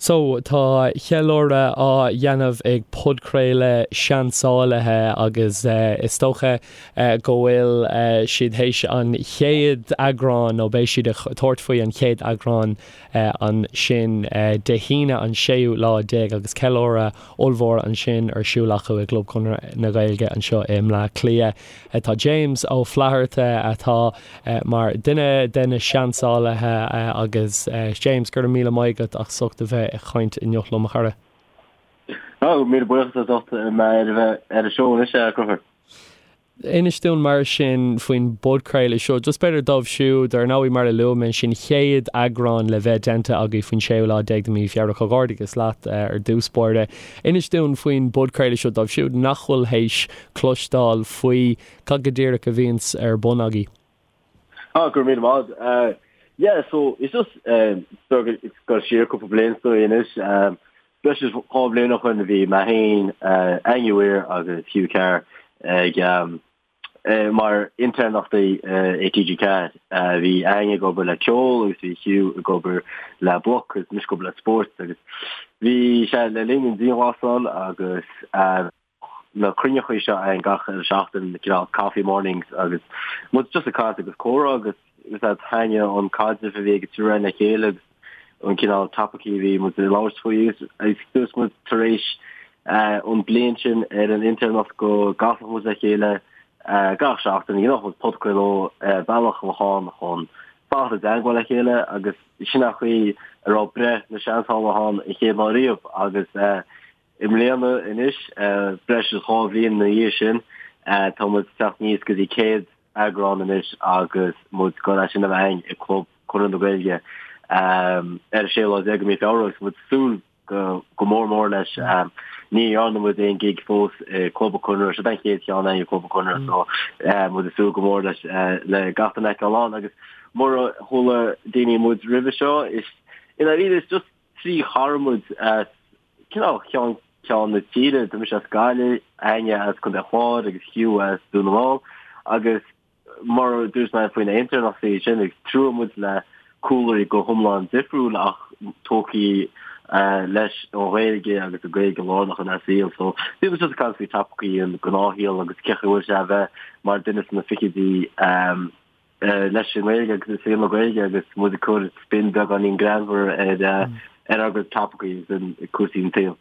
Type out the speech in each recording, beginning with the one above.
So, tá ceiliúradh á dhéanamh ag podchraoladh Seansálaithe agus is dócha go bhfuil siad théis an chéad eagrán, nó beidh siad ag tabhairt faoi an chéad eagrán ansin Dé hAoine an séú lá déag agus ceiliúradh ollmhór ansin ar siúl acu i gClub Chonradh na Gaeilge anseo i mBleá Cliath. Tá James Ó Flatharta atá mar duine de na seansálaithe agus James, go raibh míle maith agat as ucht a bheith ag caint inniu liom, a chara. Ó, míle buíochas as ucht mé ar a bheith ar an seó anois, a Chonchúir. Inis dúinn mar sin faoin bpodchraoladh seo, just b'fhéidir dóibh siúd, ar ndóigh mar a luaigh mé sin chéad eagrán le bheith déanta agaibh faoin séú lá déag de mhí Feabhra, comhghairdeachas leat ar dtús báire. Inis dúinn faoin bpodchraoladh seo dóibh siúd nach bhfuil théis cloisteáil faoi cad go díreach a bhíonns ar bun agaibh. Ah, go raibh míle maith agat. Yeah, so it's just ag dul siar cúpla bliain is dóigh anois. Breis is dhá bhliain ó shoin a bhí mé féin, Áine Weir agus Hugh Carr ag mar intéirneachtaí i TG4. Bhí Áine ag obair le ceol agus bhí Hugh ag obair le bloc agus mise ag obair le spórt agus bhí sé le linn an dianghlasáil agus na cruinneachaí seo againn gach uile seachtain, cineál coffee mornings agus muid just ag caint agus comhrá agus is ea thaitnigh an caidreamh a bhí ag an triúr againn le chéile agus an cineál topaicí a bhí muid ag labhairt faoi agus dúirt muid tar éis an bliain sin ar an intéirneacht go gcasfadh muid le chéile gach seachtain, dhéanfadh muid podchraoladh bealach a bheadh ann chun fanacht i dteagmháil le chéile agus sin an chaoi a raibh breith na seansálaithe ann an chéad lá riamh agus I mbliana anois, breis is 2 bhliain ina dhiaidh sin, tá muid ag teacht aníos go dtí 100 eagrán anois agus muid ag dul é sin a bheith againn i gClub Chonradh na Gaeilge ar an séú lá déag de mhí Feabhra agus muid ag súil go mór mór leis. Ní dhearna muid aon gig fós i gClub an Chonradh, seo an chéad cheann againn i gClub an Chonradh so muid ag súil go mór leis le gach duine a fheiceáil ann agus mura chuala daoine muid roimhe seo is i ndáiríre is just Trí chara muid as cineál ceann ceann na tíre, tá mise as Gaillimh, Áine as Contae an Chláir agus Hugh as Dún na nGall agus mar a dúirt mé faoi na intéirneachtaí sin, ag triúr muid le cúlraí go hiomlán difriúil ach tógtha leis an Ghaeilge agus an Ghaeilge lárnach inár saol. So bhí muid just ag caint faoi topaicí an gnáthshaol agus cén chaoi a bhfuil sé a bheith mar duine sna fichidí leis an nGaeilge agus i saol na Gaeilge agus muid ag cur spin beagáinín greannmhar ar ar ár gcuid topaicí agus cúrsaí an tsaoil.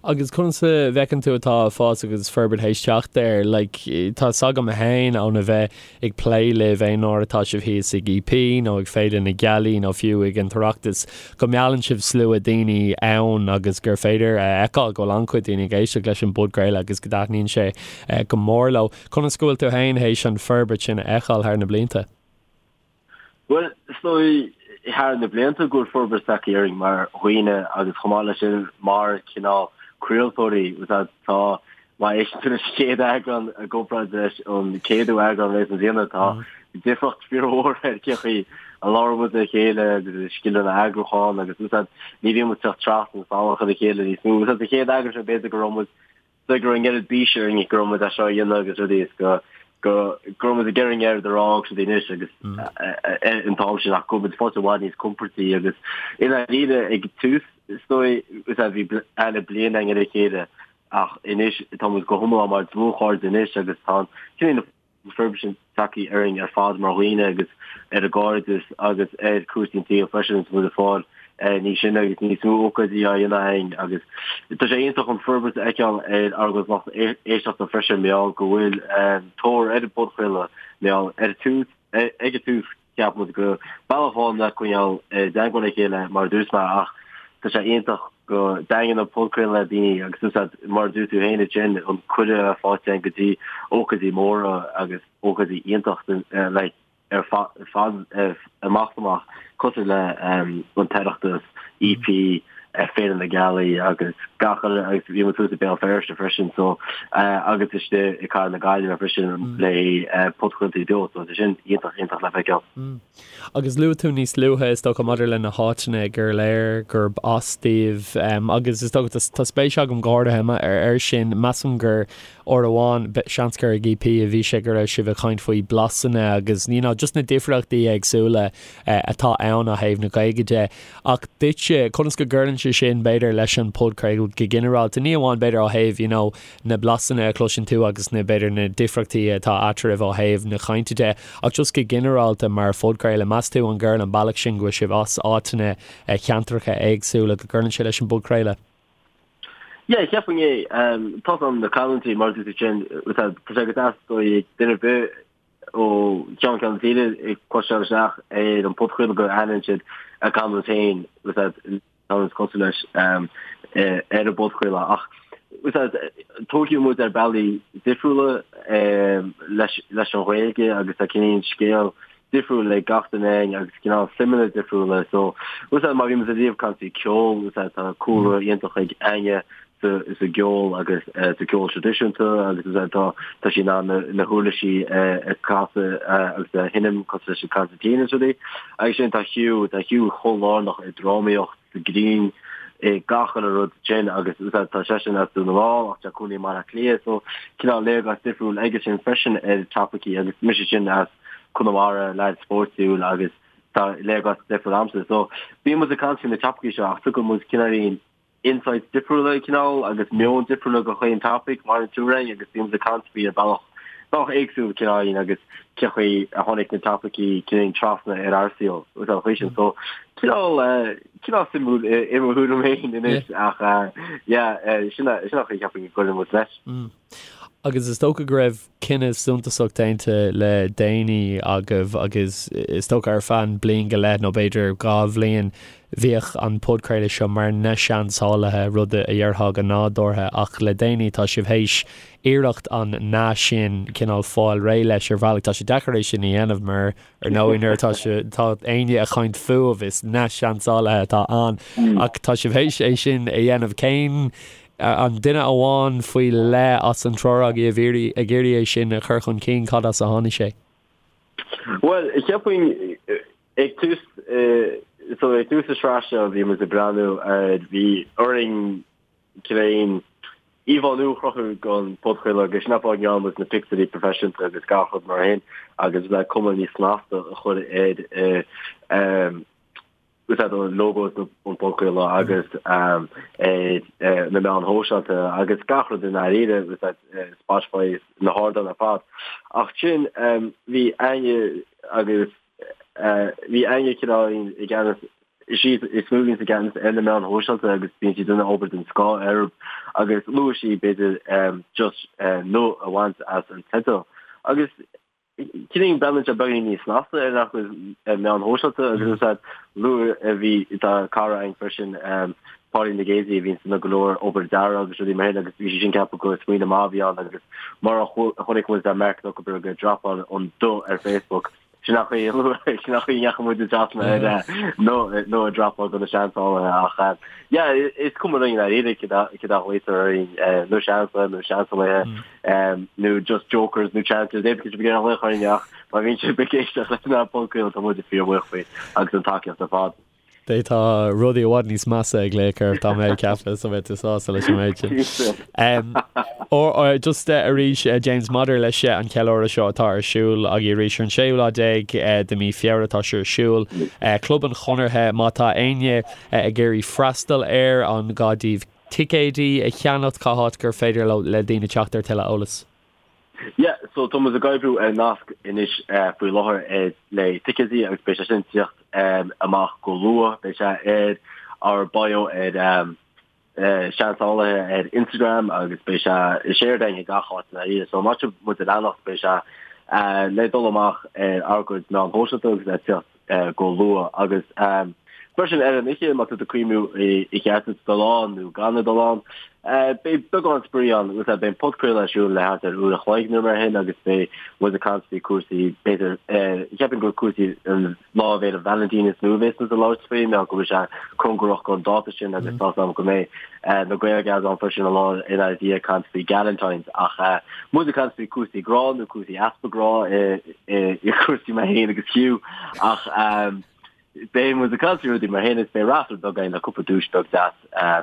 Agus conas a bhfeiceann tú atá fás agus forbairt théis teacht air? Like, tá 's agam féin óna bheith ag plé libh aon uair atá sibh thíos ag EP nó ag Féile na Gealaí nó fiú ag an tOireachtas go meallann sibh slua daoine ann agus gur féidir a fheiceáil go bhfuil an-chuid daoine ag éisteacht leis an bpodchraoladh agus go dtaitníonn sé go mór leo. Conas go bhfuil tú féin théis an forbairt sin a fheiceáil thar na blianta? Bhuel, is dóigh thar na blianta go bhfuil forbairt tagtha orainn mar dhaoine agus chomh maith leis sin mar cineál craoltóirí. Tá, má éisteann tú leis an chéad eagrán i gcomparáid leis an céadú eagrán leis an bhliana, tá difríocht fíormhór ar cén chaoi a labhrann muid le chéile agus scileanna eagrúcháin agus ní bhíonn muid ag teacht trasna salach ar a chéile níos mó. Sa chéad eagrán sin b'fhéidir go raibh muid go raibh an oiread bíse orainn go raibh muid é seo a dhéanamh agus rudaí is go go go raibh muid ag iarraidh an oiread a rá agus rudaí anois agus an t-am sin ach go bhfuil muid fós i bhfad níos compordaí agus i ndáiríre ag tús is dóigh is a bhí aithne bliain againn ar a chéile ach anois tá muid go hiomlán mar dlúthchairde anois agus tá an cineál forbairt sin tagtha orainn ar fad mar dhaoine agus ar an gcairdeas agus ar chúrsaí an tsaoil freisin is muid ag fáil níos sine agus níos mó ócáidí á dhéanamh againn agus tá sé iontach an forbairt a fheiceáil ar ár gcuid lucht éisteachta freisin mar gheall go bhfuil tóir ar an bpodchraoladh mar gheall ar tús ag an tús Cheap muid gur bealach amháin le coinneáil i dteagmháil le chéile mar a dúirt mé ach tá sé iontach go dtaitníonn an podchraoladh le daoine agus úsáid mar a dúirt tú féin ansin an cuireadh faighte againn go dtí ócáidí móra agus ócáidí iontach like ar fad amach is amach cosúil le an tOireachtas, EP, Féile na Gealaí agus gach uile agus bhí muid thuas i Béal Feirste freisin so agus istigh i cathair na Gaillimhe freisin le podchraoltaí beo so tá sin iontach iontach le feiceáil. Agus luaigh tú níos luaithe is dócha maidir le na háiteanna gur léir gurb as daoibh agus is dócha tá spéis agam go háirithe ar sin measaim gur. Uair amháin, seans gur ag EP a bhí sé go raibh sibh ag caint faoi blasanna agus you know just na difríochtaí éagsúla atá ann ó thaobh na Gaeilge de. Ach duitse, conas go gcuireann sé sin b'fhéidir leis an podchraoladh go ginearálta, ní amháin b'fhéidir ó thaobh you know na blasanna a chloiseann tú agus na b'fhéidir na difríochtaí atá eatarthu ó thaobh na cainte de, ach just go ginearálta mar phodchraoladh, meas tú an gcuireann an bealach sin go bhfuil sibh as áiteanna, ceantracha éagsúla, go gcuireann sé leis an bpodchraoladh? Yeah, cheapfainn é. Tá an na canúintí mar a dúirt tú sin, tá sé go deas do duine ar bith ó cheann ceann na tíre ag cloisteáil isteach ar an podchraoladh go aithníonn siad a gcanúint féin, canúint cosúil leis ar an bpodchraoladh. Ach tógadh muid ar bealaí difriúla leis an Ghaeilge agus tá cineál scéal difriúil ag gach duine againn agus cineál suimeanna difriúla. So, má bhí muid ariamh ag caint faoi ceol, tá cúlra iontach ag Áine sa gceol agus sa ceol traidisiúnta agus tá tá sí in ann na huirlisí a chasadh agus a sheinm cosúil leis an concertina is rudaí. Agus sin tá Hugh, tá Hugh chomh lárnach i drámaíocht, sa ghreann, i gach uile rud sin agus tá seisean as Dún na nGall ach tá cónaí i mBaile Átha Cliath so cineál léargas difriúil aige sin freisin ar topaicí agus mise sin as Conamara, leaid spórtúil agus tá léargas difriúil a'msa. So bíonn muid ag caint faoi na topaicí seo ach tugann muid cineáilín insights difriúla cineál agus meon difriúla do chaon topic mar an tuairim agus bíonn muid ag caint faoi ar bealach bealach éagsúil cineáilín agus cén chaoi a tháinig na topaicí cineál trasna ar ár saol agus an chaoi sin. So cineál cineál suimiúil i mo thuairim féin anois ach yeah sin sin an chaoi cheapfainn go gcuireann muid leis. Agus is dócha go raibh cinneadh suntasach déanta le déanaí agaibh agus is dócha ar feadh bliain go leith nó b'fhéidir 2 bhliain bhíodh an podchraoladh seo mar Na Seansálaithe, rud a dhéarfá go nádúrtha ach le déanaí tá sibh théis iarracht an 'na' sin cineál fáil réidh leis ar bhealach. Tá sé deacair é sin a dhéanamh mar ar ndóigh nuair atá sé tá éinne ag caint fúibh is Na Seansálaithe atá ann ach tá sibh théis é sin a dhéanamh. Cén An duine amháin faoi leith as an triúr agaibh ag iarraidh é sin a chur chun cinn, cad as a tháinig sé? Bhuel, cheapfainn ag tús, so ag tús na sraith seo bhí muid ag breathnú ar, bhí orainn cineál íomhá nua a chruthú don podchraoladh agus sin an fáth a ndearna muid na pictiúirí proifisiúnta agus gach rud mar sin agus le cuma níos snasta a chur ar úsáid an lógó an podchraoladh agus ar na meáin shóisialta agus gach rud i ndáiríre, úsáid Spotify na hardáin ar fad. Ach sin bhí Áine agus bhí Áine cineál i gceannas is í is mó a bhíonns i gceannas ar na meáin shóisialta agus bíonn sí ag déanamh obair den scoth orthu agus luaigh sí b'fhéidir just 'na' a bhaint as an teideal agus Cineál breathnaíonn sé beagáinín níos snasta ar ár gcuid meáin shóisialta agus is ea luaigh a bhí tá cara againn freisin Pauline Gazy a bhíonn ag déanamh go leor obair dearaidh agus rudaí mar sin agus bhí sí sin ag ceapadh gur smaoineamh maith a bhí ann agus mar a chonaic muid Mark Zuckerberg ag dropáil an 'the' ar Facebook sin an chaoi sin an chaoi a ndeachaigh muid trasna ar 'na' 'na' a dropáil do na seansálaithe ach yeah is cuma linn i ndáiríre céard a ghlaotar orainn na seansálaithe nó seansálaithe nó just jokers nó chancers, pé cad a ghlaoch orainn ach má bhíonn sibh ag éisteacht leis an bpodchraoladh tá muid fíorbhuíoch faoi agus an tacaíocht ar fad. Tá rudaí i bhfad níos measa ag glaoch oraibh tá mé ag ceapadh so beidh tú sásta leis an méid sin. Just arís James maidir leis an cheiliúradh seo atá ar siúl agaibh arís ar an séú lá déag de mí Feabhra atá sé ar siúl. Club an Chonartha má tá éinne ag iarraidh freastal air an gá daoibh ticéidí a cheannacht, cá háit gur féidir le daoine teacht ar tuilleadh eolais? Yeah, so tá muid ag oibriú ar nasc anois faoi láthair le ticéidí agus beidh sé sin ag tíocht amach go luath. Beidh sé ar ár bio ar Seansálaithe ar Instagram agus beidh sé shared againn ag gach áit i ndáiríre. So má tá sibh muid a leanacht beidh sé le dul amach ar ár gcuid meán shóisialta agus le tíocht go luath agus freisin ar an oíche má tá tú ag cuimhniú ar cheart duit dul ann nó gan a dul ann. Beidh beagán spraoi ann agus beidh an podchraoladh ar siúl le thart ar uair a chloig nó mar sin agus beidh muid ag caint faoi cúrsaí b'fhéidir cheapfainn gur cúrsaí an Lá Fhéile Vailintín is mó a bheas muid ag labhairt faoi mar go bhfuil sé cóngarach don dáta sin agus tá 's agam go mbeidh na Gael-Gals ann freisin an lá ina dhiaidh ag caint faoi Galentine's ach muid ag caint faoi cúrsaí grá nó cúrsaí easpa grá i cúrsaí mé féin agus Hugh ach beidh muid ag caint faoi rudaí mar sin is beidh raffle beag againn le cúpla duais beag deas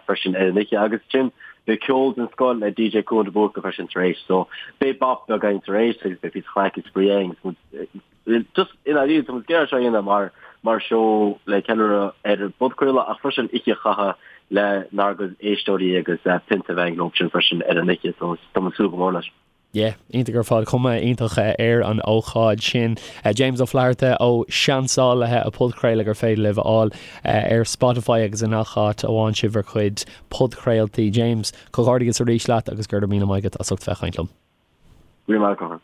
freisin ar an oíche agus sin. Beidh ceol den scoth le DJ Cuan de Búrca freisin tar éis so beidh bap beag againn tar éis agus beidh píosa craic is spraoi againn agus muid just i ndáiríre tá muid ag iarraidh seo a dhéanamh mar mar seó le ceiliúradh ar an bpodchraoladh ach freisin oíche a chaitheamh lenár gcuid éisteoirí agus pionta a bheith againn leo sin freisin ar an oíche so tá muid ag súil go mór leis. Yeah, iontach ar fad, cuma iontach ar an ócáid sin. James Ó Flatharta ó Seansálaithe, an podchraoladh gur féidir libh a fháil ar Spotify agus i ngach áit a bhfaigheann sibh bhur gcuid podchraoltaí. James, comhghairdeas arís leat agus go raibh míle maith agat as ucht bheith ag caint liom. Go raibh maith agat.